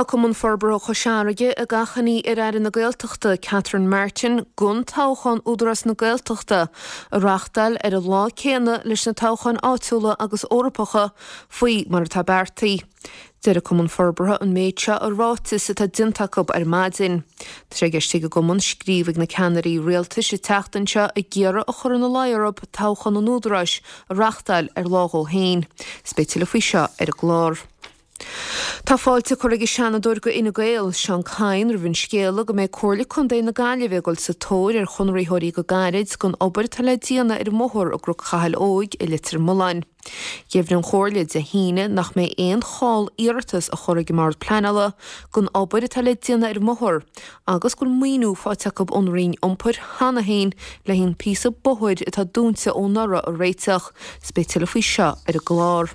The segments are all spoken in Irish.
Tá Cumann Forbartha Chois Fharraige ag achainí ar Aire na Gaeltachta, Catherine Martin, gan toghchán Údarás na Gaeltachta a reáchtáil ar an lá céanna leis na toghcháin áitiúla agus Eorpacha faoi mar atá beartaithe. Deir an Cumann Forbartha an méid seo i ráiteas atá déanta acu ar maidin. Tá sé i gceist ag an gcumann scríobh ag na ceannairí rialtais an tseachtain seo ag iarraidh a chur ina luí orthu toghchán an Údaráis a reáchtáil ar lá dhó féin. Is beidh tuilleadh faoi seo ar an gclár. Tá fáilte curtha ag an Seanadóir do Fhine Gael, Seán Kyne, roimh an scéala go mbeidh Comhairle Contae na Gaillimhe ag dul sa tóir ar chonraitheoirí go gairid don obair atá le déanamh ar an mbóthar i gCnoc Chathail Óig i Leitir Mealláin. Dheimhnigh an Chomhairle Dé hAoine nach mbeidh aon chall iarratas á chur ag an mBord Pleanála don obair atá le déanamh ar an mbóthar agus go bhfuil maoiniú faighte acu ón Roinn Iompair cheana féin le haghaidh an píosa bóthair atá dúnta ó anuraidh a réiteach. Is beidh tuilleadh faoi seo ar an gclár.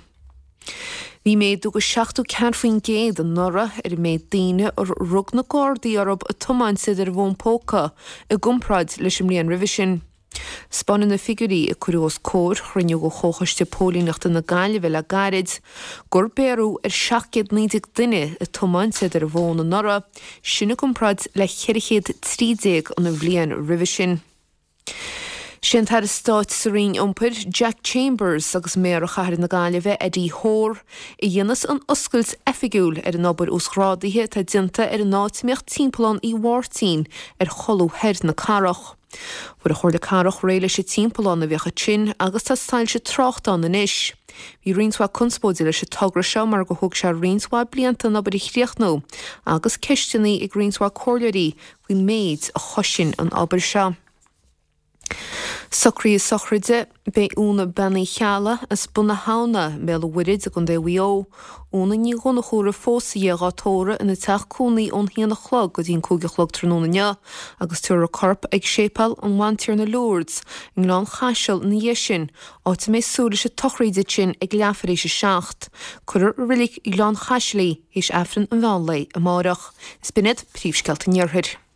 Bhí méadú de 74% anuraidh ar an méid daoine ar rug na Gardaí orthu ag tiomáint iad ar a bhfón póca i gcomparáid leis an mbliain roimhe sin. 'Spáineann na figiúirí a cuireadh os comhair chruinniú de Chomhchoiste Póilíneachta na Gaillimhe le gairid gur bhéarradh ar 719 duine ag tiomáint iad ar a bhfón anuraidh, sin i gcomparáid le 413 an bhliain roimhe sin. Sé an tAire Stáit sa Roinn Iompair, Jack Chambers agus Méara Chathair na Gaillimhe, Eddie Hoare, a dhéanfas an oscailt oifigiúil ar an obair uasghrádaithe atá déanta ar an áit a mbíodh Timpeallán Uí Mháirtín ar cholbha thoir na cathrach. Fuair an Chomhairle Cathrach réidh leis an timpeallán a bhíodh ansin agus tá soilse tráchta ann anois. Bhí roinnt mhaith conspóide leis an togra seo mar gur thóg sé roinnt mhaith blianta an obair a chríochnú agus ceisteanna ag roinnt mhaith comhairleoirí faoin méid a chosain an obair seo. Socruithe sochraide. Beidh Úna Bean Uí Cheallaigh as Bun na hAbhna, i mBéal an Mhuirthead i gContae Mhaigh Eo, Úna Ní Dhonnchúra phósta dhi dhá tórramh ina teach cónaí ón haon a chlog go dtí an 5 a chlog tráthnóna inniu agus tabharfar a corp ag Séipéal an Bhantiarna Lourdes i nGleann Chaisil ina dhiaidh sin, áit a mbeidh súil leis an tsochraíd ansin ag leathuair théis a 7. Cuirfear i Reilig Ghleann Chaisil í théis Aifreann an mheán lae amárach. Is b'in iad príomhscéalta an Iarthair.